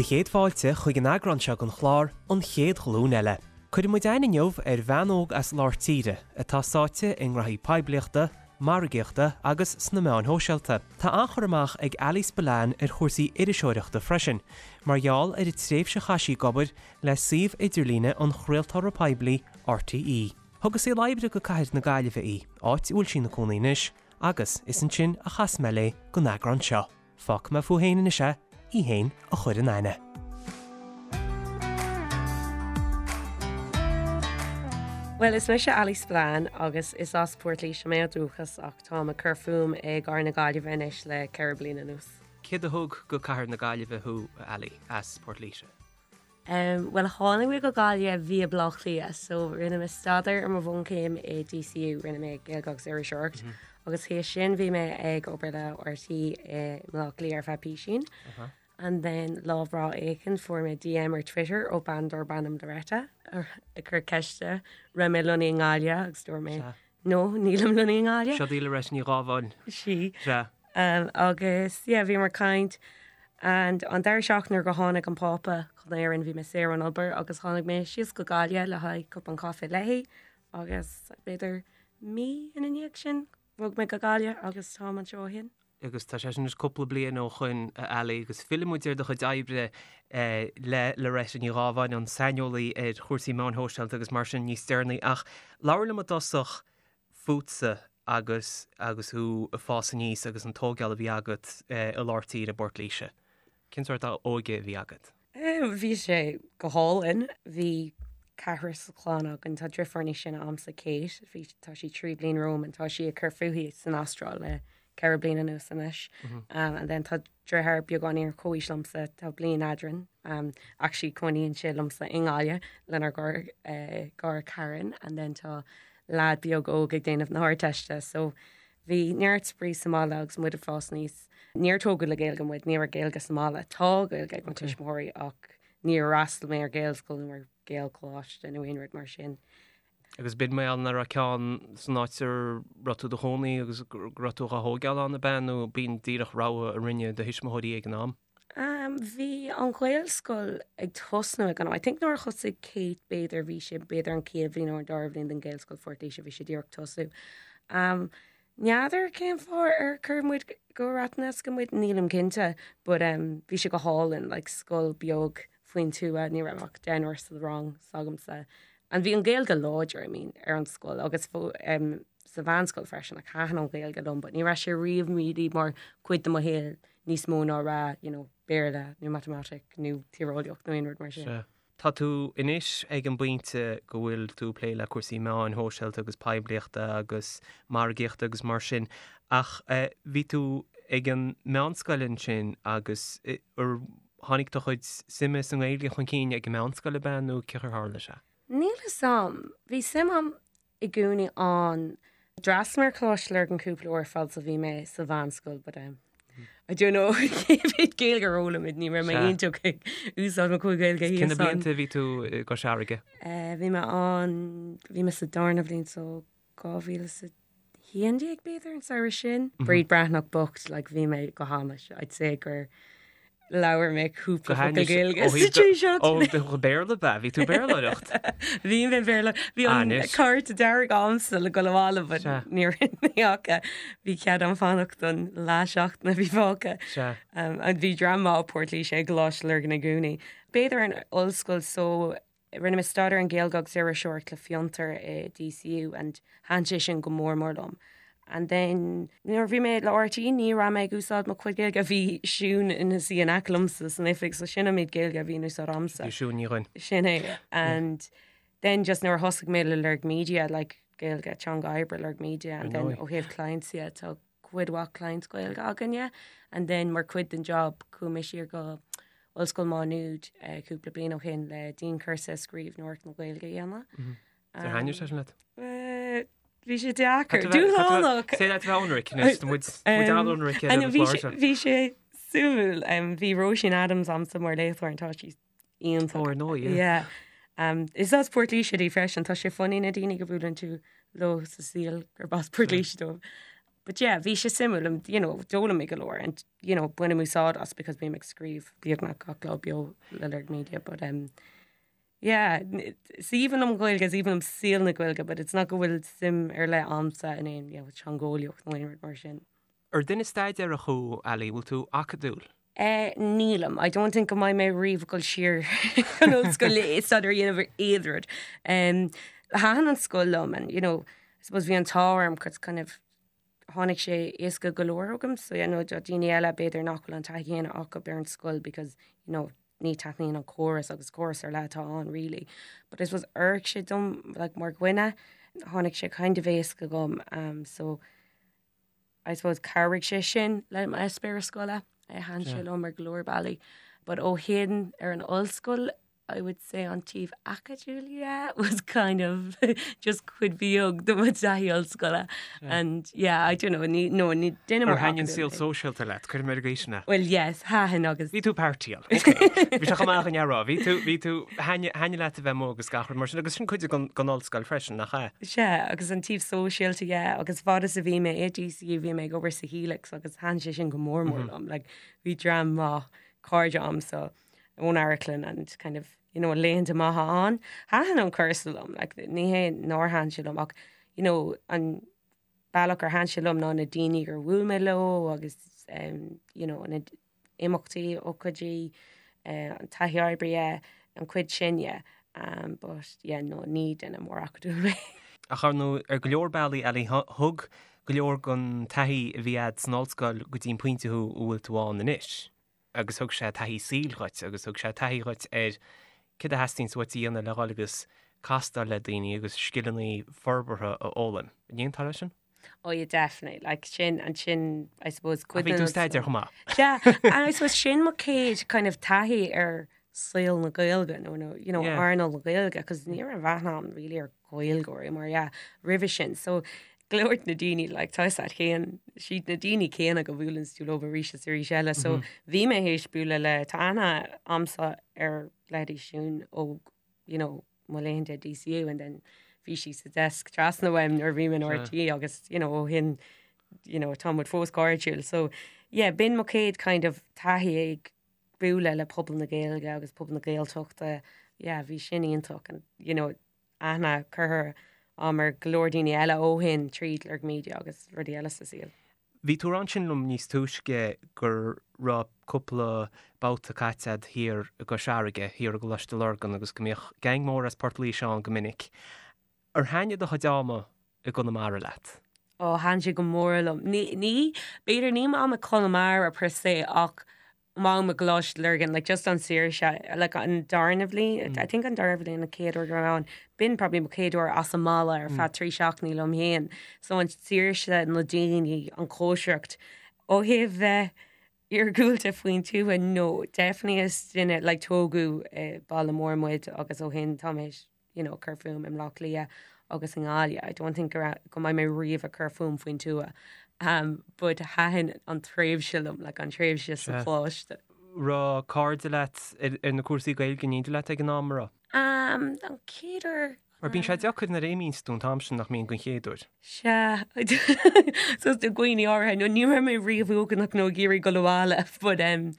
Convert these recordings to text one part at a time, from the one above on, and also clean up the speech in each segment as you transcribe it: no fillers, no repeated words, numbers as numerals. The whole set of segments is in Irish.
Do chéad fáilte chuig an eagrán seo den chlár An Chéad Ghlúin Eile. Cuirfidh muid aithne inniu ar bhean óg as lár tíre atá sáite i ngraithí poiblíochta, margaíochta agus sna meáin shóisialta. Tá an-chur amach ag Ali Spillane ar chúrsaí iriseoireachta freisin, mar gheall ar an tréimhse a chaith sí ag obair le suíomh idirlíne an chraoltóra poiblí RTÉ. Thug a saol oibre go cathair na Gaillimhe í, áit a bhfuil sí ina cónaí anois, agus is ansin a chas mé léi don eagrán seo. Fágfaidh mé fúithi féin anois é, í féin a chur in aithne. Bhuel, is mise Ali Spillane agus is as Port Laoise mé ó dhúchas ach táim ag cur fúm i gcathair na Gaillimhe anois le 4 bliana anuas. Céard a thug go cathair na Gaillimhe thú, a Ali, as Port Laoise? Bhuel, tháinig mé go Gaillimh via Baile Átha Cliath, so rinne mé staidéar ar mo bhunchéim i DCU, rinne mé Gaeilge agus Iriseoireacht, agus théis sin bhí mé ag obair le RTÉ i mBaile Átha Cliath ar feadh písín. And then lá breá éicint fuair mé DM ar Twitter ó bean darb ainm Loretta ag cur ceiste raibh mé lonnaithe i nGaillimh agus dúirt mé No, nílim lonnaithe i nGaillimh. Seo í Loretta Ní Ghábháin. Sí. Sea. Agus, yeah, bhíomar ag caint and an deireadh seachtaine nuair go tháinig an Pápa chun Éireann bhí mé saor ón obair agus tháinig mé síos go Gaillimh le haghaidh cupán caife léi agus b'fhéidir mí ina ndiaidh sin bhog mé go Gaillimh agus táim anseo ó shin. Agus tá sé sin anois cúpla bliain ó shoin, a Ali, agus fillfidh muid ar do chuid oibre le Loretta Ní Ghábháin, an saineolaí ar chúrsaí meáin shóisialta agus mar sin níos deireanaí. Ach labhair liom i dtosach fútsa agus agus thú ag fás aníos agus an tógáil a bhí agat i lár tíre i bPort Laoise. Cén sórt óige a bhí agat? Bhí sé go hálainn. Bhí ceathrar sa chlann againn. Tá driofúr níos sine a'msa, Kate. Bhí, tá sí 3 bliain romham and tá sí ag cur fúithi san Astráil le 4 bliana anuas anois. And then tá driotháir beagáinín ar comhaois liomsa, tá bliain eadrainn. Actually cónaíonn sé liomsa i nGaillimh lenár gcara Karen and then tá leaid beag óg ag déanamh na hArdteiste. So Bhí neart spraoi sa mbaile agus muid ag fás aníos. Níor tógadh le Gaeilge muid, ní raibh Gaeilge sa mbaile. Tá Gaeilge ag mo tuismitheoirí ach níor fhreastail mé ar Ghaelscoil nó ar Ghaelcholáiste nó aon rud mar sin. Agus b'in mar gheall nach raibh ceann san áit a raibh tú i do chónaí agus go raibh tú á thógáil ann, ab ea, nó b'in díreach rogha a rinne do thuismitheoirí ag an am? Bhí an Ghaelscoil ag tosnú ag an am. I think nuair a thosaigh Kate b'fhéidir bhí sé b'fhéidir an chéad bhliain nó an dara bhliain den Ghaelscoil Phort Laoise bhí sé díreach tosú. N'fheadar cén fáth ar chuir muid go Ratheniska muid, nílim cinnte, but bhí sé go hálainn, like scoil beag faoin tuath, ní raibh ach deichniúr sa rang s'agamsa. And bhí an Ghaeilge láidir, I mean, ar an scoil agus sa mheánscoil freisin, like thaitin an Ghaeilge liom, but ní raibh sé riamh really mar chuid de mo shaol níos mó ná rá, you know, Béarla nó matamaitic nó tíreolaíocht nó aon rud mar sin. Sea. Tá tú anois ag an bpointe go bhfuil tú ag plé le cúrsaí meáin shóisialta agus poiblíochta agus margaíochta agus mar sin, ach bhí tú ag an meánscoil ansin agus ar tháinig do chuid suime sa nGaeilge chun cinn ag an meánscoil ab ea nó cén chaoi ar tharla sé? Níl fhios a'm. Bhí suim a'm i gcónaí ann. D'fhreastail mé ar Choláiste Lurgan cúpla uair fad is a bhí mé sa mheánscoil but um, I don't know cé mhéad Gaeilge a d'fhoghlaim muid, ní raibh mé iontach ag úsáid mo chuid Gaeilge thíos ann. Cé na blianta a bhí tú i gCois Fharraige? Eh, bhí mé ann, bhí mé sa darna bhliain so 2011 b'fhéidir an samhradh sin. Bríd Breathnach bocht, like bhí mé go hainnis, I'd say gur Labhair mé cúpla focal Gaeilge sa trí seachtaine. Ó, Béarla ab ea? Bhí tú Béarlóireacht? Bhí mé Béarla. Bhí an cárta dearg a'msa le dul abhaile but ní rinne mé ach bhí cead a'm fanacht don leath seachtaine a bhí fágtha. And bhí dream maith ó Port Laoise ag Coláiste Lurgan i gcónaí. B'fhéidir an ollscoil so Rinne mé staidéar ar an Ghaeilge agus Iriseoireacht le Fiontar i DCU and thaitin sé sin go mór mór liom. And then nuair a bhí mé le RTÉ ní raibh mé ag úsáid mo chuid Gaeilge, bhí Siún ina suí in aice liomsa san oifig so sin an méid Gaeilge a bhí in úsáid a'msa. Bhí Siún Ní Dhuinn. Sin é. And then just nuair a thosaigh mé le Lorg Media, like Gaeilge teanga oibre Lorg Media and then ó thaobh clients dhe tá cuid mhaith clients Gaeilge againne and then mar chuid den job chuaigh mé siar go Ollscoil Má Nuad cúpla bliain ó shin le dianchúrsa scríbhneoireacht na Gaeilge a dhéanamh. Ar thaitnigh sé sin leat? Bhí sé deacair. Dúshlánach! Sé leat bheith ionraic anois, tá muid an-ionraic ar an chlár seo. Bhí sé suimiúil. Bhí Róisín Adams a'msa mar léachtóir and tá sí iontach. Ó, ar ndóigh, yeah. Yeah. Um, is as Port Laoise di freisin, tá sé funny na daoine go buaileann tú leo sa saol gurb as Port Laoise dóibh. But yeah, bhí sé suimiúil and you know, d'fhoghlaim mé go leor and you know, bainim úsáid as because bím ag scríobh beagnach gach lá beo le Lorg Media but um, yeah, is aoibhinn liom an Ghaeilge, is aoibhinn liom saol na Gaeilge but it's not go bhfuil suim ar leith a'msa in aon you know, teangeolaíocht nó aon rud mar sin. Ar duine staidéarach thú, Ali, bhfuil tú acadúil? Eh, nílim. I don't think go mbeidh mé riamh ag dul siar chun ollscoile le staidéar a dhéanamh ar aon rud. Um, thaitin an scoil liom and, you know, I suppose bhí an t-ádh orm 'cause kind of tháinig sé éasca go leor chugam so you know, do daoine eile b'fhéidir nach bhfuil an taithí chéanna acu ar an scoil because, you know, ní taitníonn an córas agus córas ar leith atá ann really. But I suppose oir sé dom like, mar dhuine tháinig sé kind of éasca chugam um, so I suppose chabhraigh sé sin le m'eispéireas scoile, thaitin sé liom ar go leor bealaí. But ó shin ar an ollscoil, I would say an taobh acadúil yeah, was kind of just cuid bheag de mo taithí ollscoile. And yeah, I don't know, ní, no, ní duine mór Ar thaitin an saol sóisialta leat, cuirim ar an gcaoi sin é. Well yes, thaitin agus. Bhí tú partyáil, ok. Bhí sé chomh maith againn a rá, bhí tú, bhí tú, thaitin leat a bheith amuigh agus gach rud mar sin, agus sin cuid den ollscoil freisin, nach ea? Sea, agus an taobh sóisialta, yeah, agus fad is a bhí mé i DCU bhí mé ag obair sa Helix agus thaitin sé sin go mór mór liom, like bhí dream maith cairde a'msa ón amharclann and kind of, you know, laethanta maithe ann. Thaitin an cúrsa liom, like ní hé nár thaitin sé liom ach, you know, an bealach ar thaitin sé liom ná na daoine gur bhuail mé leo agus um, you know, na imeachtaí, ócáidí, an taithí oibre, yeah, an chuid sin, yeah. Um, but yeah, no, ní duine mór acadúil mé. Ach ar ndóigh, ar go leor bealaí, Ali, thug go leor den taithí a bhí a'd san ollscoil go dtí an pointe thú a bhfuil tú ann anois. Agus thug sé taithí saoil dhuit agus thug sé taithí dhuit ar céard a theastaíonns uait a dhéanamh le dhul agus castáil le daoine agus scileanna forbartha a fhoghlaim. An aontófá leis sin? Oh yeah, definitely. Like sin, and sin, I suppose, cuid Bhí tú staidéar chomh maith. Yeah, and I suppose sin mo chéad kind of taithí ar saol na Gaeilge nó no, you know, yeah. earnáil na Gaeilge, cos ní raibh aithne a'm really ar Ghaeilgeoirí mar yeah, roimhe sin. So go leor de na daoine like tá siad chéan siad na daoine céanna go bhuaileann tú leo arís is arís eile. So mm -hmm. bhí mé théis bualadh le tá aithne a'msa ar leithéidí Siún ó you know, mo laethanta DCU and then bhí sí sa desk trasna uaim nuair a bhí mé in RTÉ agus you know ó shin you know tá muid fós cairdiúil so yeah b'in mo chéad kind of taithí ag bualadh le pobal na Gaeilge agus pobal na Gaeltachta yeah bhí sin iontach and you know aithne curtha a'm ar go leor daoine eile ó shin tríd Lorg Media agus rudaí eile sa saol. Bhí tú ag rá ansin liom níos túisce go raibh cúpla babhta caite a'd thiar i gCois Fharraige, thiar i gColáiste Lurgan agus go mbíodh geaing mór as Port Laoise ann go minic. Ar thaitnigh do chuid ama i gConamara leat? Ó, thaitin sé go mór liom. Ní, ní, b'fhéidir ní m'am i Conamara per se ach m'am i gColáiste Lurgan, like just an saoirse, like an darna bhliain, I think an darna bhliain an chéad uair go raibh mé ann, b'in probably mo chéad uair as an mbaile ar feadh 3 seachtainí liom féin. So an saoirse, na daoine, an chóisireacht. Ó thaobh bheith iargúlta faoin tuath, no, definitely is duine, like tógadh i baile mór muid agus ó shin tá mé you know, cur fúm i mBleá Cliath agus i nGaillimh. I don't think go raibh, go mbeidh mé riamh ag cur fúm faoin tuath. Um, but thaitin an tréimhse liom, like an tréimhse sa choláiste. Raibh cairde leat ar, ar na cúrsaí Gaeilge in éindí leat ag an am, an raibh? Um, an chéad uair Mar bíonn sé deacair nuair a imíonns tú an t-am sin nach mbíonn den chéad uair. Sea, so do dhaoine áirithe, no ní raibh mé riamh uaigneach nó ag iarraidh dul abhaile, but um,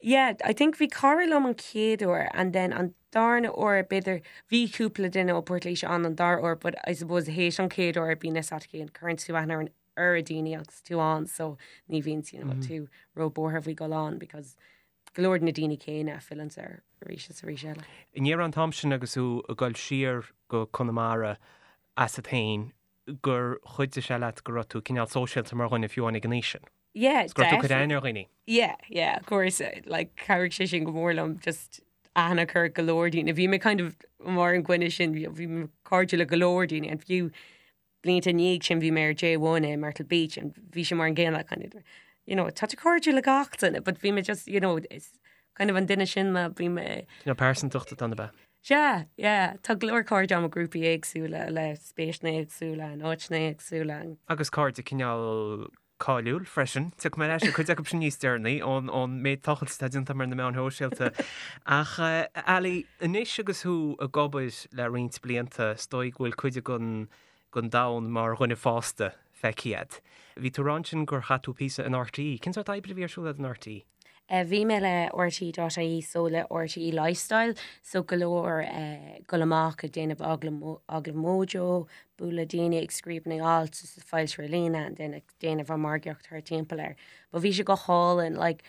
yeah, I think bhí cara liom an chéad uair and then an darna uair b'fhéidir, bhí cúpla duine ó Port Laoise ann an dara uair but I suppose théis an chéad uair bíonn fhios a't féin, cuireann tú aithne ar an oiread daoine agus tú ann so ní bhíonn you know, tú ró-buartha faoi dhul ann because go leor de na daoine céanna a fhilleann air arís is arís eile. An ndéarfá an t-am sin agus tú ag dul siar go Conamara asat féin gur chuidigh sé leat go raibh tú cineál sóisialta mar dhuine fiú amháin ag an aois sin? Yeah, Go raibh tú ag cur aithne ar dhaoine? Yeah, yeah, of course. Like, chabhraigh sé sin go mór liom, just aithne a chur ar go leor daoine. Bhí mé kind of mar an dhuine sin, bhí mé cairdiúil le go leor daoine, and fiú blianta i ndiaidh sin bhí mé ar J1 i Myrtle Beach and bhí sé mar an gcéanna kind of, you know, tá tú cairdiúil le gach duine, but bhí mé just, you know, is kind of an duine sin mé, bhí mé. Cineál pearsantacht atá ann ab ea? Sea, yeah, tá go leor cairde agam i grúpaí éagsúla le spéiseanna éagsúla, in áiteanna éagsúla. Agus cairde cineál cáiliúil freisin. Tiocfaidh mé ar ais ar cuid acu sin níos deireanaí ón ón méid tochailt atá déanta agam ar na meáin shóisialta. Ach Ali, anois agus thú ag obair le roinnt blianta, is dóigh go bhfuil cuid den den domhan mar dhuine fásta. feicthe agat. Bhí tú ag rá ansin gur chaith tú píosa in RTÉ. Cén sórt oibre a bhí ar siúl agat in RTÉ? Bhí mé le RTÉ.ie so le RTÉ Lifestyle so go leor dul amach ag déanamh agallamh Mojo, bualadh le daoine ag scríobh na n-alt is ag foilsiú ar líne and then ag déanamh an margaíocht thar timpeall air. But bhí sé go hálainn like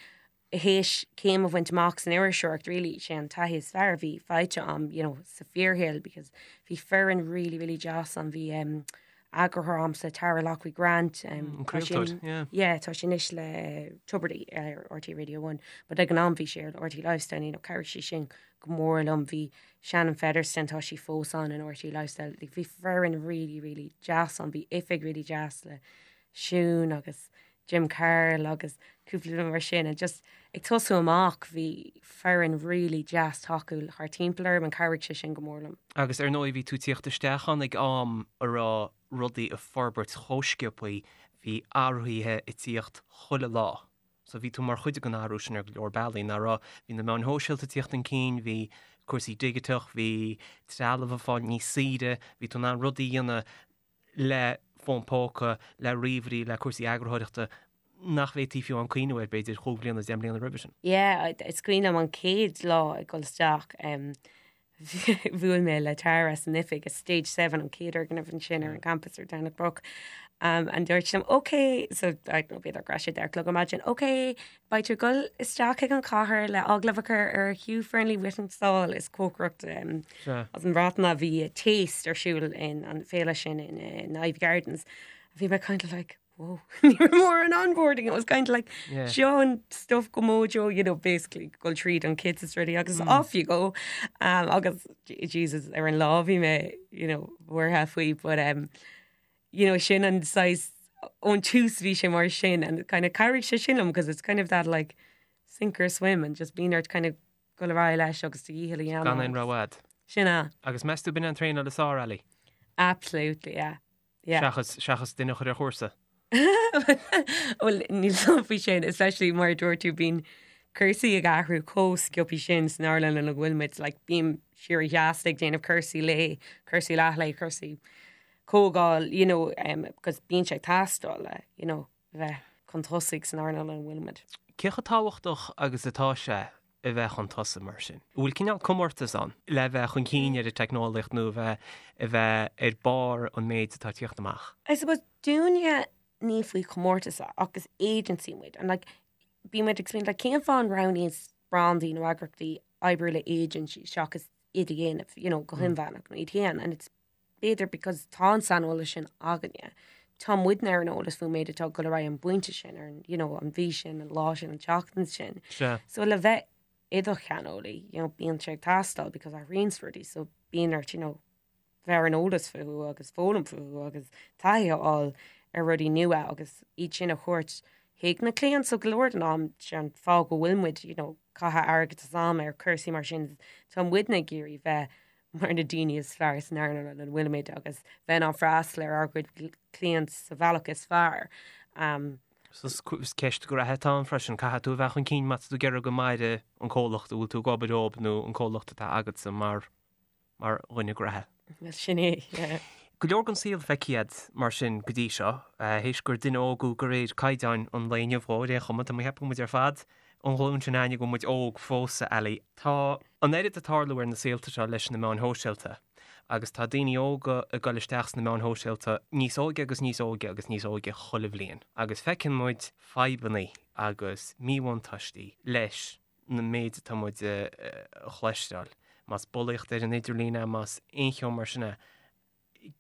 théis céim a bhaint amach san iriseoireacht really sé an taithí is fearr a bhí faighte a'm you know sa fíorshaol because bhí foireann really really deas ann bhí um, eagarthóir a'msa Tara Loughrey Grant um, An tá sí craoltóir, yeah. yeah tá sí anois le Tubridy ar RTÉ Radio 1 but ag an am bhí sí ar RTÉ Lifestyle you know chabhraigh sí sin go mór liom bhí Shannon Featherstone tá sí fós ann in RTÉ Lifestyle like, bhí foireann really really deas ann bhí oifig really deas le Siún agus Jim Carroll agus cúpla duine mar sin and just ag tosú amach bhí foireann really deas tacúil thar timpeall orm and chabhraigh sé sin go mór liom. Agus ar ndóigh bhí tú ag tíocht isteach ann ag am a raibh rudaí ag forbairt chomh sciobthaí, bhí athruithe ag tíocht chuile lá. So bhí tú mar chuid den athrú sin ar go leor bealaí, nach raibh? Bhí na meáin shóisialta ag tíocht chun cinn, bhí cúrsaí digiteach, bhí trealamh ag fáil níos saoire, bhí tú in ann rudaí a dhéanamh le fón póca, le ríomhairí, le cúrsaí eagarthóireachta nach bhféadfaí fiú amháin cuimhniú air, b'fhéidir, chúig bliana, deich mbliana roimhe sin. Yeah, is cuimhin liom an chéad lá ag dul isteach, bhuail mé le Tara san oifig i Stage 7, an chéad fhoirgneamh ansin ar an campus ar Domhnach Broc, and dúirt sí liom, OK, so I don't know, b'fhéidir go raibh sé 10 a chlog ar maidin, OK, Beidh tú ag dul isteach chuig an chathair le agallamh a chur ar Hugh Fearnley-Whittingstall is cócaireacht as an Bhreatain a bhí Taste ar siúl in an féile sin in in Iveagh Gardens. Bhí mé kind of like whoa ní raibh mórán onboarding it was kind of like seo an stuff go Mojo you know basically dul tríd an kit is rudaí agus off you go um, agus Jesus ar an lá bhí mé you know buartha faoi but um, you know, sin an saghas ón tús bhí sé mar sin and kind of chabhraigh sé sin liom because it's kind of that like sink or swim and just bíonn ort kind of dul ar aghaidh leis agus do dhícheall a dhéanamh. Gan aon rogha a'd. Sin é. Agus meas tú b'in an traenáil is fearr, Ali? Absolutely, yeah. Yeah. Seachas, seachas duine a chur ar chúrsa. Bhuel, níl 's a'm faoi sin, especially mar a dúirt tú bíonn cúrsaí ag athrú chomh sciobtha sin san earnáil ina bhfuil muid, like bím síorsheasta ag déanamh cúrsaí lae, cúrsaí leathlae, cúrsaí comhdháil, you know, um, because bíonn sé ag teastáil le, you know, bheith chun tosaigh san earnáil ina bhfuil muid. Cé chomh tábhachtach agus atá sé a bheith chun tosaigh mar sin? An bhfuil cineál comórtas ann le bheith chun cinn ar an teicneolaíocht nó a bheith, a bheith ar barr an méid atá ag tíocht amach? I suppose dúinne ní faoi chomórtas é ach is agency muid and like bíonn muid ag smaoineamh like cén fáth an roghnaíonn brandaí nó eagraíochtaí oibriú le agency seachas iad a dhéanamh, you know, go hinmheánach nó iad féin and it's B'fhéidir because tá an saineolas sin againne. Tá muidne ar an eolas faoin méid atá ag dul ar aghaidh an bpointe sin, ar an, you know, an mhí sin, an lá sin, an tseachtain sin. Sea. So le bheith i do cheanneolaí, you know, bíonn sé ag teastáil because athraíonn rudaí, so bíonn ort, you know, bheith ar an eolas fúthu agus foghlaim fúthu agus taithí a fháil ar rudaí nua agus iad sin a thabhairt chuig na cliaint. So go leor den am, sé an fáth go bhfuil muid, you know, caitheamh airgead is am ar cúrsaí mar sin, tá muidne ag iarraidh bheith mar na daoine is fearr san earnáil ina bhfuilimid agus bheith in ann freastal ar ár gcuid cliant sa bhealach is fearr. So is ceist gnaithe atá ann freisin, caithfidh tú a bheith chun cinn má tá tú ag iarraidh go maire an comhlacht a bhfuil tú ag obair dóibh nó an comhlacht atá agatsa mar mar dhuine gnaithe. Well sin é, yeah. Go leor den saol feicthe a'd mar sin go dtí seo, théis gur duine óg thú de réir caighdeáin an lae inniu dhó, ar aon chuma, tá mé ag ceapadh go bhfuil muid ar fad an ghlúin sin againne go bhfuil muid óg fós, a Ali. Tá an oiread ag tarlú ar na saolta seo leis na meáin shóisialta agus tá daoine óga ag dul isteach sna meáin shóisialta níos óige agus níos óige agus níos óige chuile bhliain agus feiceann muid fadhbanna agus míbhuntáistí leis na méid atá muid a chloisteáil, más bulaíocht ar an idirlíon é, más aon cheo mar sin é.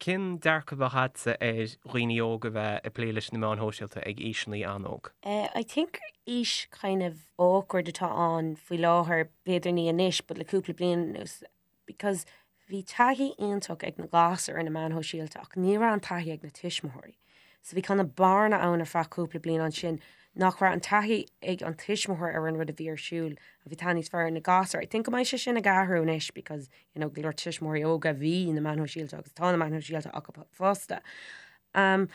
Cén dearcadh a bheadh agatsa ar dhaoine óga a bheith ag plé leis na meáin shóisialta ag aoiseanna an-óg? I think aois kind of awkward atá ann faoi láthair, b'fhéidir ní anois but le cúpla bliain anuas because bhí taithí iontach ag na gasúir ar na meáin shóisialta ach ní raibh an taithí ag na tuismitheoirí. So bhí kind of bearna ann ar feadh cúpla bliain ansin nach raibh an taithí ag an tuismitheoir ar an rud a bhí ar siúl a bhí taithí níos fearr ar na gasúir. I think go mbeidh sé sin ag athrú anois because you know, go leor tuismitheoirí óga bhí na meáin shóisialta agus tá na meáin shóisialta acu fosta. Um,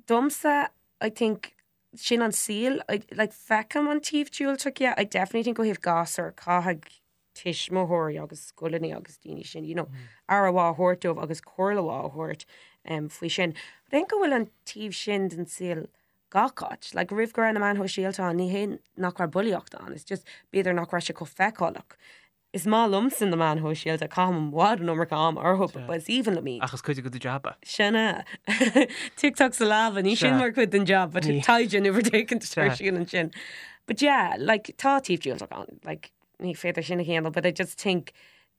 domsa, I think, sin an saol, I, like, feicim an taobh diúltach, yeah, I definitely think ó thaobh gasúr, caithfidh. tuismitheoirí agus scoileanna agus daoine sin, you know, aire mhaith a thabhairt dóibh agus comhairle mhaith a thabhairt um, faoi sin. But I think go bhfuil an taobh sin den saol gach áit. Like, roimh go raibh na meáin shóisialta ann, ní hé nach raibh bulaíocht ann, it's just b'fhéidir nach raibh sé chomh feiceálach. Is maith liomsa na meáin shóisialta, caithim i bhfad an iomarca am orthu, but is aoibhinn liom iad. Ach is cuid de do jab é. Sin é. TikTok sa leaba, ní sin mar chuid den job, but taighde nó rud éicint ar siúl ansin. But yeah, like, tá taobh diúltach ann, like, ní féidir sin a shéanadh, but I just think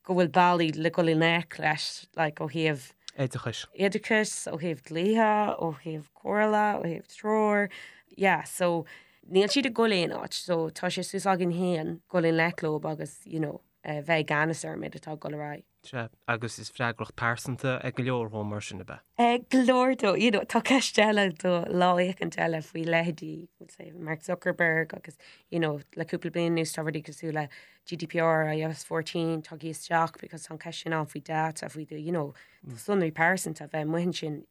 go bhfuil bealaí le dul i ngleic leis, like, ó thaobh. Oideachais. Oideachais, ó thaobh dlíthe, ó thaobh comhairle, ó thaobh treoir, yeah, so níl siad ag dul aon áit, so tá sé suas againn féin dul i ngleic leo agus, you know, bheith i gceannas ar an méid atá ag dul ar aghaidh. Sea, agus is freagracht pearsanta ag go leor dhó mar sin, ab ea? Ag go leor dó, you know, tá ceist eile do lá éicint eile faoi leithéidí, we'll say, Mark Zuckerberg agus, you know, le cúpla bliain anuas tá rudaí cosúil le GDPR, iOS 14, tagtha isteach because tá an ceist sin ann faoi data, faoi do, you know, do sonraí pearsanta bheith amuigh ansin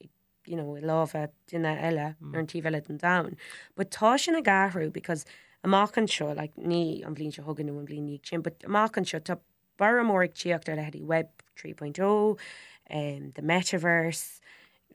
you know, i lámha duine eile ar an taobh eile den domhan. But tá sin ag athrú because amach anseo, like, ní an bhliain seo chugainn nó an bhliain ina dhiaidh sin, but amach anseo tá borradh mór ag tíocht ar leithéidí Web 3.0, um, the metaverse,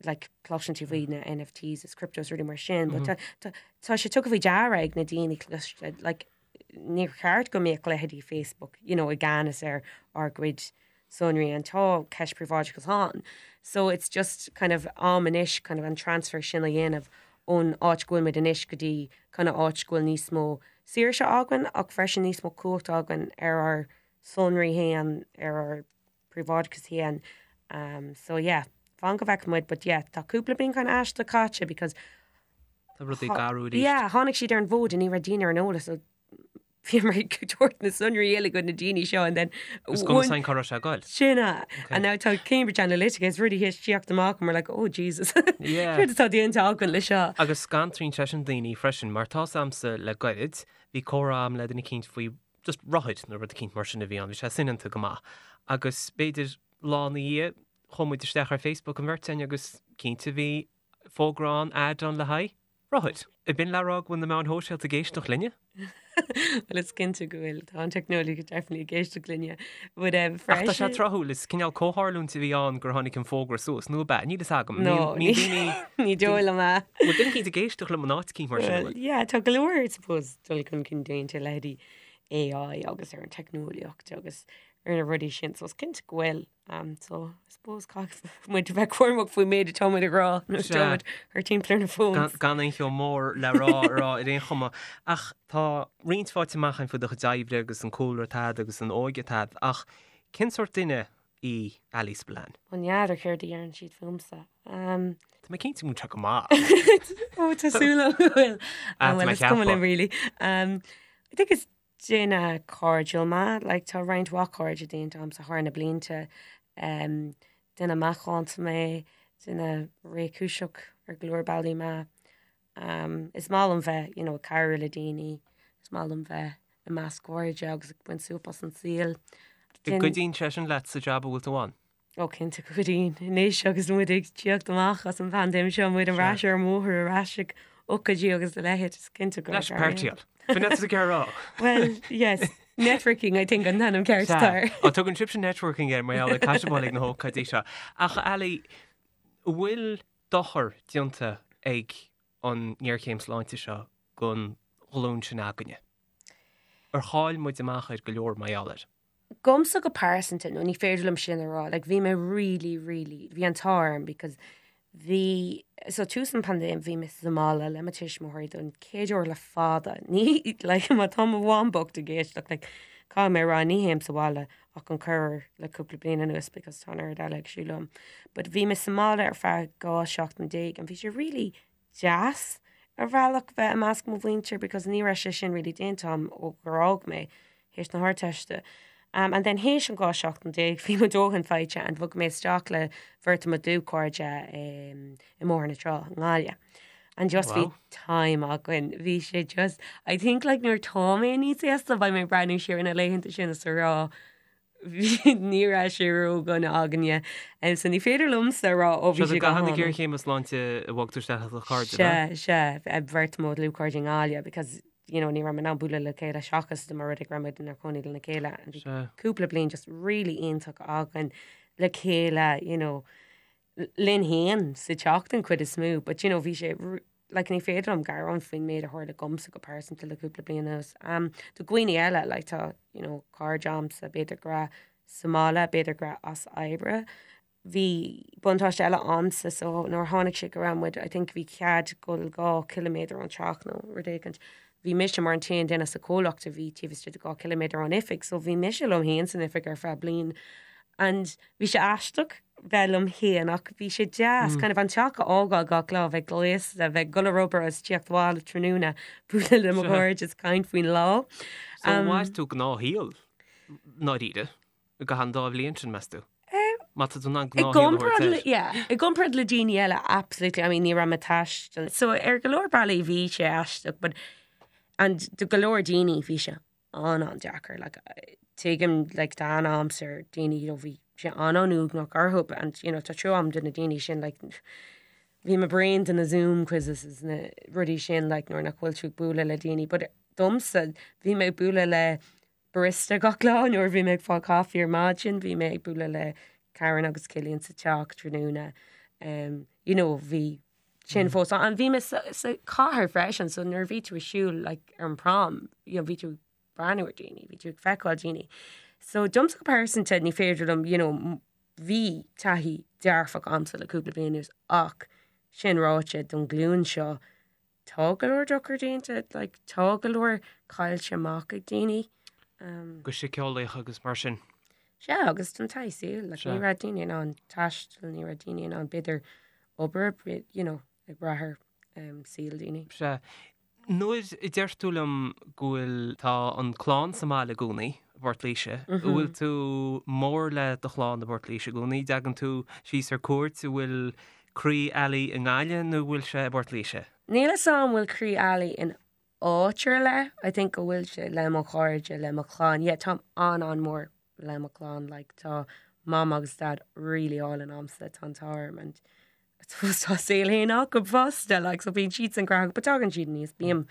like, cloiseann tú faoi na NFTs is cryptos rudaí mar sin, but tá, tá, tá sé tugtha faoi deara ag na daoine cliste, like, níor cheart go mbeadh leithéidí Facebook, you know, i gceannas ar ár gcuid sonraí and tá ceist príobháideachas ann. So it's just kind of am anois kind of an transfer sin a dhéanamh ón áit go bhfuil muid anois go dtí kind of áit go bhfuil níos mó saoirse againn ach freisin níos mó cumhacht againn ar ár sonraí féin, ar ár bpríobháideachas féin. Um, so yeah, fan go bhfeicfidh muid, but yeah, tá cúpla bliain kind of aisteach caite because Tá rudaí ag athrú arís. Yeah, tháinig siad ar an bhfód and ní raibh daoine ar an eolas, so bhíomar ag tabhairt na sonraí uilig go na daoine seo and then Is cuma san cá raibh sé ag goil. Sin é. And now tá Cambridge Analytica is rudaí théis tíocht amach and we're like, oh Jesus. Yeah. Céard atá déanta againn le seo? Agus scanraíonn sé sin daoine freisin, mar tá's a'msa le gairid, bhí comhrá a'm le duine eicínt faoi just rothair nó rud eicínt mar sin a bhí ann, bhí sé soineanta go maith. Agus b'fhéidir lá ina dhiaidh, chuaigh muid isteach ar Facebook an bheirt againn agus cinnte bhí fógra ann, ad ann le haghaidh rothair. Ab in le rá go bhfuil na meáin shóisialta ag éisteacht linne? Bhuel is cinnte go bhfuil, tá an teicneolaíocht definitely ag éisteacht linne. But um, Ach tá sé tráthúil, is cineál comhtharlúint a bhí ann gur tháinig an fógra suas, nó ab ea? Níl fhios agam. No, ní dóigh liom é. Bhfuil duine eicínt ag éisteacht liom in áit eicínt mar sin, Well, yeah, tá go leor, I suppose, dul chun cinn déanta leithéidí AI agus ar an teicneolaíocht agus ar na rudaí sin, so is cinnte go bhfuil. Um, so, I suppose caithfidh muid a bheith cúramach faoin méid atá muid ag rá nuair atá muid thar timpeall ar na phones. Gan aon cheo mór le rá a rá ar aon chuma. Ach tá roinnt faighte amach againn faoi do chuid oibre agus an cúlra atá agat agus an óige atá agat, ach cén sórt duine í Ali Spillane? Ó n'fheadar céard a deireann siad fúmsa. Um, Tá mé cinnte go bhfuil sé go maith. Ó, tá súil agam go bhfuil. Ah, tá Well, mé is cuma ceaptha. liom really. Um, I think is Duine cairdiúil mé, like tá roinnt mhaith cairde déanta agamsa thar na blianta. Um, duine macánta mé, duine réchúiseach ar go leor bealaí mé. Um, is maith liom bheith, you know, ag cabhrú le daoine, is maith liom bheith i measc cairde agus ag baint súp as an saol. An gcuidíonn sé sin leat sa jab a bhfuil tú ann? Ó cinnte go gcuidíonn. Anois agus muid ag tíocht amach as an bpaindéim seo, muid ar ais ar an mbóthar, ar ais ag ócáidí agus a leithéid, is cinnte go Leis páirtíáil. B'in é ag rá. Well, yes, networking I think an t-ainm ceart atá air. Ó tugann sibhse networking air mar gheall ar caiseabáil ag na hócáidí seo. Ach Ali, an bhfuil dochar déanta ag an ngéarchéim sláinte seo don ghlúin sin againne? Ar chaill muid amach ar go leor mar gheall air? Domsa go pearsanta, no ní féidir liom sin a rá, like bhí mé really, really, bhí an t-ádh orm because bhí, so tús an paindéim bhí mé sa mbaile le mo tuismitheoirí don chéad uair le fada, ní, like má tá mo mham bocht ag éisteacht, like caithfidh mé a rá ní théim sa bhaile ach an corruair le cúpla bliain anuas because tá an oiread eile ag siúl liom. But bhí mé sa mbaile ar feadh 12 seachtain and bhí sé really deas ar bhealach bheith i measc mo mhuintir because ní raibh sé sin really déanta agam ó gur fhág mé théis na hArdteiste. Um, and then théis an 12 seachtain bhí mo dóthain faighte and bhog mé isteach le beirt de mo dlúthchairde um, i mBóthar na Trá, i nGaillimh. And just bhí time againn. Bhí sé just, I think like nuair tá mé níos aosta beidh mé ag breathnú siar ar na laethanta sin is a rá ní raibh sé ródhona againne. So ní féidir liomsa a rá ó bhí sé go hana. Géarchéim sláinte a bhog tú isteach le do chairde, Sea, sea, beirt mo dhlúthchairde i nGaillimh because, you know, ní raibh muid in ann bualadh le chéile seachas dá mba rud é go raibh muid inár gcónaí lena chéile and bhí cúpla bliain just really iontach againn le chéile, you know, linn féin sa teach den chuid is mó but you know bhí sé like ní féidir liom gearán faoin méid a tharla dhomsa go pearsanta le cúpla bliain anuas. Um, do dhaoine eile like tá you know cairde a'msa b'fhéidir go raibh sa mbaile, b'fhéidir go raibh as oibre. Bhí buntáiste eile a'msa so nuair a tháinig sé go raibh muid I think bhí cead dul 2 chiliméadar ón teach nó rud éicint. Bhí mise mar an t-aon duine sa chomhlacht a bhí taobh istigh de 2 chiliméadar ón oifig so bhí mise liom féin san oifig ar feadh bliain and bhí sé aisteach bheith liom féin ach bhí sé deas kind of an teach a fhágáil gach lá, bheith gléasta, bheith ag dul ar obair agus tíocht abhaile tráthnóna, bualadh le mo chairde is caint faoin lá. So mhair tú gnáthshaol ndáiríre i gcaitheamh an dá bhliain sin, meas tú? Má tá tú in ann gnáthshaol a thabhairt air. Yeah, i gcomparáid le daoine eile, absolutely. I mean, ní raibh mé ag taisteal. So ar go leor bealaí bhí sé aisteach, but and do go leor daoine bhí sé an-an-deacair. Like, tuigim, like, tá aithne a'msa ar daoine, you know, bhí sé an-an-uaigneach orthu and, you know, tá trua a'm do na daoine sin, like, bhí mé bréan de na Zoom quizzes is na rudaí sin, like, nuair nach bhfuil tú ag bualadh le daoine. But domsa, bhí mé ag bualadh le barista gach lá nuair a bhí mé ag fáil caife ar maidin, bhí mé ag bualadh le Karen agus Cillian sa teach tráthnóna. Um, you know, bhí sin fós ann. And bhí mé sa, sa chathair freisin, so nuair a bhí tú ag siúl like, ar an prom, you know, bhí tú ag breathnú ar daoine, bhí tú ag feiceáil daoine. So domsa go pearsanta ní féidir liom, you know, bhí taithí dearfach a'msa le cúpla bliain anuas ach sin ráite don ghlúin seo tá go leor dochar déanta, like, tá go leor caillte amach ag daoine. Um, go síceolaíoch agus mar sin. Sea, agus don taithí saoil, like, ní raibh daoine in ann taisteal, ní raibh daoine in ann b'fhéidir obair, you know, ag brath ar um, saol daoine. Sea. Nuair a deir tú liom go bhfuil, tá an clann sa mbaile i gcónaí, i bPort Laoise, an bhfuil tú mór le do chlann i bPort Laoise i gcónaí? Dtagann tú síos ar cuairt, an bhfuil croí Ali i nGaillimh nó an bhfuil sé i bPort Laoise? Níl a fhios a'm an bhfuil croí Ali in áit ar leith, I think go bhfuil sé le mo chairde, le mo chlann, yeah táim an-an-mhór le mo chlann, like tá mam agus dad really álainn a'msa, tá an t-ádh orm and I suppose tá a saol féin acu fosta, like so bíonn siadsan gnóthach but tagann siad aníos, bím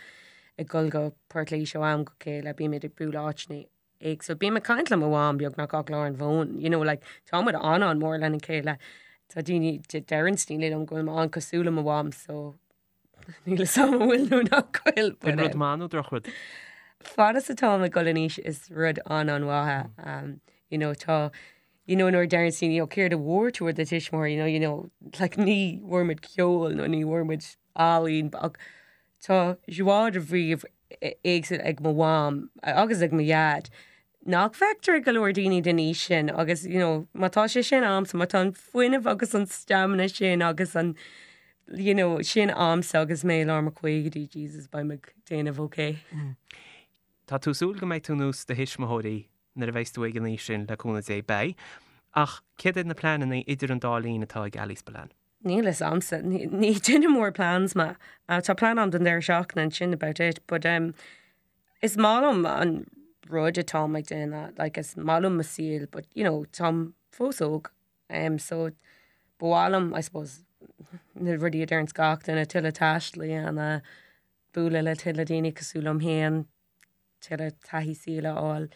ag dul go Port Laoise ó am go chéile, bímid ag bualadh áiteanna éagsúla, bím ag caint le mo mham beagnach gach lá ar an bhfón, you know like tá muid an-an-mhór lena chéile, tá daoine, deireann daoine liom go bhfuil mé an-cosúil le mo mham so Níl a fhios a'm an bhfuil nó nach bhfuil. Sin rud maith nó drochrud? Fad is atáim ag dul in aois is rud an-an-mhaith é. You know, tá, you know, nuair a deireann daoine, oh, céard a bhfuair tú ó do tuismitheoirí, you know, you know, like ní bhfuair muid ceol nó ní bhfuair muid ealaín, ach tá joie de vivre éagsúil ag mo mham agus ag mo dhaid nach bhfeictear ag go leor daoine den aois sin agus you know má tá sé sin a'msa, má tá an fuinneamh agus an stamina sin agus an you know sin a'msa agus mé i lár mo chaogaidí, Jesus beidh mé ag déanamh ok. Tá tú ag súil go mbeidh tú nós do thuismitheoirí nuair a bheas tú ag an aois sin, le cúnamh Dé, beidh. Ach céard iad na pleananna idir an dá linn atá ag Ali Spillane? Níl a fhios a'msa. Ní duine mór plans mé. Tá plean a'm don deireadh seachtaine and sin about it. But um, is maith liom an rud atáim ag déanamh, like is maith liom mo saol, but you know, táim fós óg. Um, so ba mhaith liom, I suppose, na rudaí a deireanns gach duine, tuilleadh taistil a dhéanamh, bualadh le tuilleadh daoine cosúil liom féin, tuilleadh taithí saoil a fháil.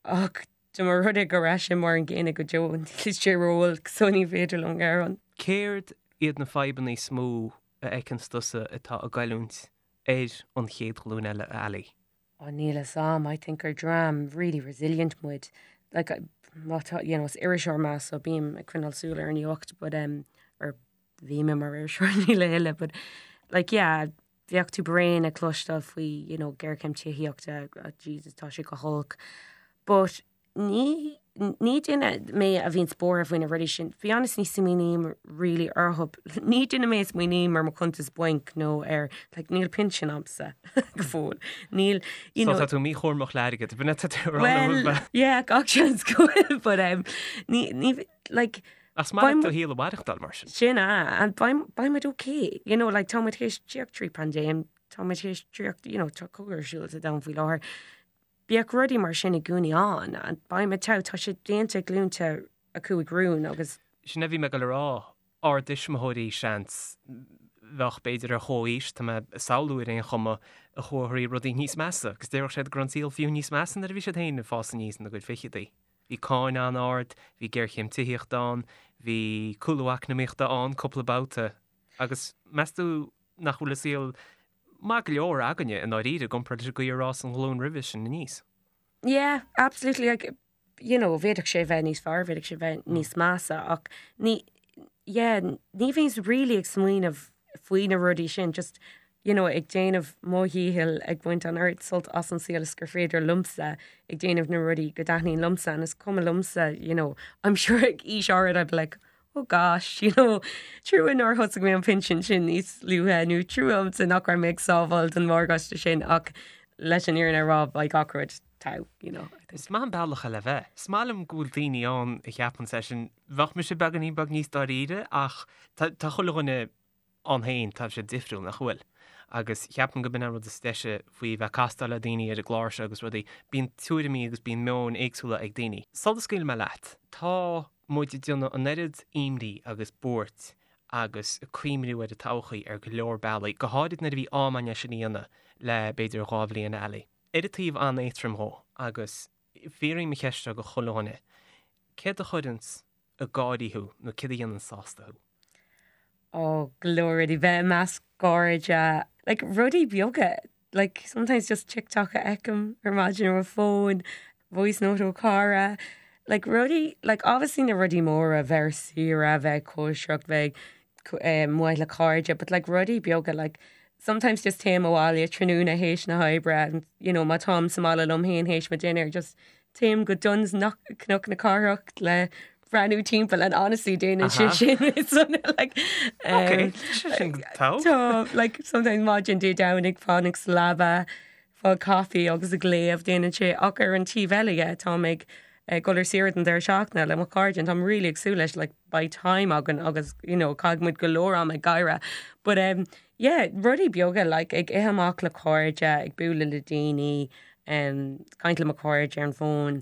Ach dá mba rud é go raibh sé mar an gcéanna go deo, níl sé róolc so ní féidir liom gearán. Céard iad na fadhbanna is mó a fheiceanns tusa atá ag goilliúint ar an chéad ghlúin eile, a Ali? Ó níl a fhios a'm, I think gur dream really resilient muid. Like, má tá, you know, is iriseoir mé so bím ag coinneáil súil ar an nuacht but um, or bhí mé mar iriseoir níl a thuilleadh but like yeah, bheadh tú bréan ag cloisteáil faoi you know géarchéim tithíochta oh Jesus tá sé go holc but ní ní duine mé a bhíonn buartha faoi na rudaí sin. Be honest ní smaoiním really orthu. Ní duine mé a smaoiním ar mo chuntas bainc nó ar like níl pinsean a'msa go fóill. Níl you know. So tá tú míchúramach le hairgead, b'in é tá tú a rá Well yeah gach seans go bhfuil but um ní ní like Ach is maith leat do shaol a mhaireachtáil mar sin. Sin é, and beidh beidh muid okay, you know, like tá muid théis tíocht trí paindéim, tá muid théis tíocht, you know, tá cogadh ar siúl sa domhan faoi láthair. Bíodh rudaí mar sin i gcónaí ann, and beidh muid togha, tá sé déanta ag glúnta a chuaigh romhainn agus. Sin a bhí mé ag dul a rá, ár dtuismitheoirí, seans. bheadh b'fhéidir ar chomhaois, tá mé ag samhlú ar aon chuma, a chuaigh thrí rudaí níos measa agus déarfadh siad go raibh an saol fiú níos measa nuair a bhí siad féin ag fás aníos ina gcuid ficheadaí. Bhí cáin an-ard, bhí géarchéim tithíochta ann, bhí cúlú eacnamaíochta ann cúpla babhta agus meas tú nach bhfuil an saol maith go leor againne i ndáiríre i gcomparáid leis an gcaoi ar fhás an ghlúin roimhe sin aníos? Yeah, absolutely. Like, you know, bhféadfadh sé bheith níos fearr, bhféadfadh sé bheith níos measa ach ní, yeah, ní bhíonns really ag smaoineamh faoi na rudaí sin, just, you know, ag déanamh mo dhícheall ag baint an oiread sult as an saol is gur féidir liomsa, ag déanamh na rudaí go dtaitníonn liomsa and is cuma liomsa, you know, I'm sure ag aois áirid I'd be like, oh gosh, you know, trua nár thosaigh mé an pinsean sin níos luaithe nó trua ormsa nach raibh mé ag sábháil don mhorgáiste sin ach leis an fhírinne a rá beidh gach rud togha, you know. Is maith an bealach é le bheith. Is maith liom go bhfuil daoine ann a cheapann é sin. Bheadh mise beagáinín beag níos dáiríre ach tá chuile dhuine ann féin, tá siad difriúil, nach bhfuil? Agus cheapfainn go b'in an rud is deise faoi bheith ag castáil le daoine ar an gclár seo agus rudaí, bíonn tuairimí agus bíonn meoin éagsúla ag daoine. Sula scaoilfidh mé leat, tá muid ag déanamh an oiread imní agus buairt agus ag cuimhniú ar an todhchaí ar go leor bealaí, go háirid nuair a bhí am againn é sin a dhéanamh le b'fhéidir 2 bhliain eile. Ar an taobh an-éadtrom dhó, agus fiafraím an cheist seo go chuile dhuine, céard a chuireanns ag gáirí thú nó céard a dhéanann sásta thú? Ó, go leor rudaí, bheith i measc cairde, like rudaí beaga, like sometimes just TikTok a fheicim ar maidin ar mo fón, voice note ó chara, like rudaí, like obviously na rudaí móra, bheith ar saoire, bheith ag cóisireacht, bheith amuigh le cairde, but like rudaí beaga, like sometimes just téim abhaile tráthnóna théis na hoibre and you know má táim sa mbaile liom féin théis mo dinnéar just téim go Dunnes Cnoc na Cathrach le breathnú timpeall and honestly déanann sé sin it's like um, sin tá like sometimes maidin Dé Domhnaigh fanacht sa leaba fáil caife agus ag léamh déanann sé ach ar an taobh eile dhe táim ag ag dul ar saoire don deireadh seachtaine le mo chairde and táim really ag súil leis like beidh time againn agus you know caithfidh muid go leor am ag gáire but um, yeah rudaí beaga like ag ithe amach le cairde ag bualadh le daoine um, caint le mo chairde ar an bhfón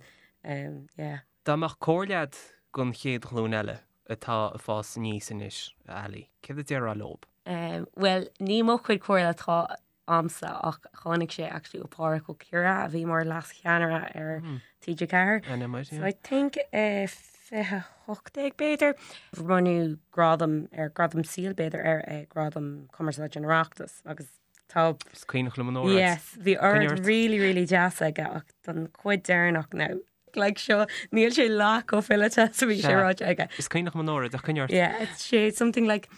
um, yeah. Dá mbeadh comhairle agat don chéad ghlúin eile atá ag fás aníos anois, a Ali, céard a déarfá leob? Um, well, ní mo chuid comhairle atá a'msa ach tháinig sé actually ó Pádhraic Ó Ciardha a bhí mar leas-cheannaire ar TG4. So I think uh, 2018 b'fhéidir. Bronnadh gradam ar gradam saoil b'fhéidir ar uh, gradam cumarsáide an Oireachtais agus tá Is cuimhneach liom an óráid. Yes, bhí óráid really really deas aige ach don chuid deireanach now like seo níl sé leath chomh fileata is a bhí sé ráite aige. Is cuimhneach liom an óráid ach coinnigh ort. Yeah, it's sé something like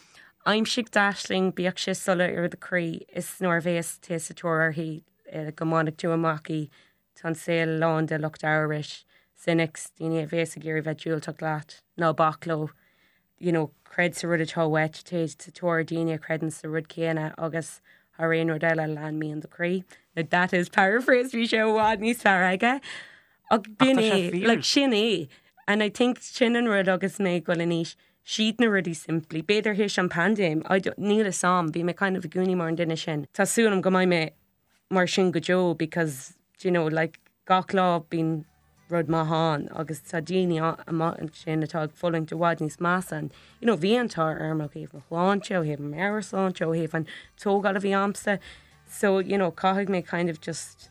aimsigh d'aisling bíodh sé soiléir i do chroí is nuair a bhéas tú sa tóir uirthi eh, go mbainfidh tú amach í tá an saol lán de lucht amhrais, cynics, daoine a bhéas ag iarraidh bheith diúltach leat, ná bac leo, you know, creid sa rud atá uait, téigh sa tóir daoine a chreideann sa rud céanna agus thar aon rud eile lean mian do chroí. Now that is paraphrased, bhí sé i bhfad níos fearr aige. Ach b'in é, like sin é. And I think sin an rud agus mé ag dul in aois, siad na rudaí simplí. B'fhéidir théis an paindéim, I don't, níl fhios a'm, bhí mé kind of i gcónaí mar an duine sin. Tá súil agam go mbeidh mé mar sin go deo because do you know like gach lá bíonn rud maith ann agus tá daoine amuigh ansin atá ag fulaingt i bhfad níos measa and you know bhí an t-ádh orm ó thaobh mo shláinte, ó thaobh mo meabhairshláinte, ó thaobh an tógáil a bhí a'msa so you know caithfidh mé kind of just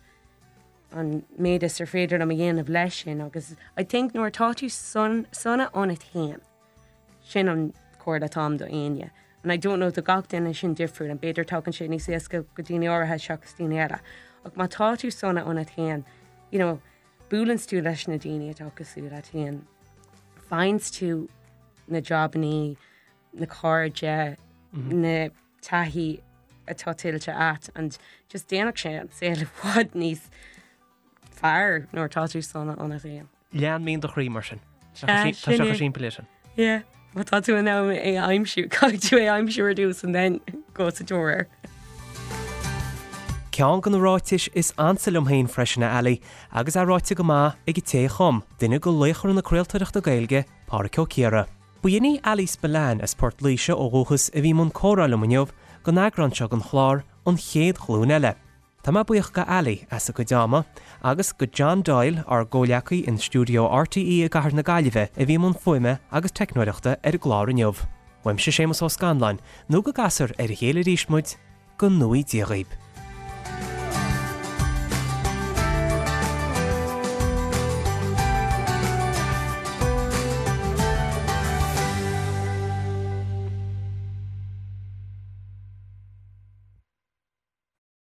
an méid is ar féidir liom a dhéanamh leis sin agus I think nuair atá tú sona ionat féin Sin an comhairle atá a'm do éinne. And I don't know do gach duine sin difriúil and b'fhéidir tagann sé níos éasca go daoine áirithe seachas daoine eile. Ach má tá tú sona ionat féin, you know, buaileanns tú leis na daoine atá cosúil leat féin, faigheanns tú na jabannaí, na cairde, na taithí atá tuillte a't and just déanfadh sé an saol i bhfad níos fearr nuair atá tú sona ionat féin. Lean mian do chroí mar sin. Tá sé chomh simplí leis sin. Yeah, má tá tú in ann é a aimsiú, caithfidh tú é a aimsiú ar dtús and then go sa tóir air. Ceann de na ráitis is ansa liom féin freisin, a Ali, agus é ráite go maith ag an té a chum, duine de laochra na craoltóireachta Gaeilge, Pádraic Ó Ciardha. Ba shin í Ali Spillane as Port Laoise ó dhúchas a bhí i mbun comhrá liom inniu don eagrán seo den chlár, An Chéad Ghlúin Eile. Tá mé buíoch go Ali as a cuid ama, agus go John Doyle, ár gcomhleacaí in stiúideo RTÉ i gcathair na Gaillimhe a bhí i mbun fuaime agus teicneoireachta ar an gclár inniu. Uaimse Séamus Ó Scanláin, nó go gcasfar ar a chéile arís muid, go ngnóthaí Dia dhaoib.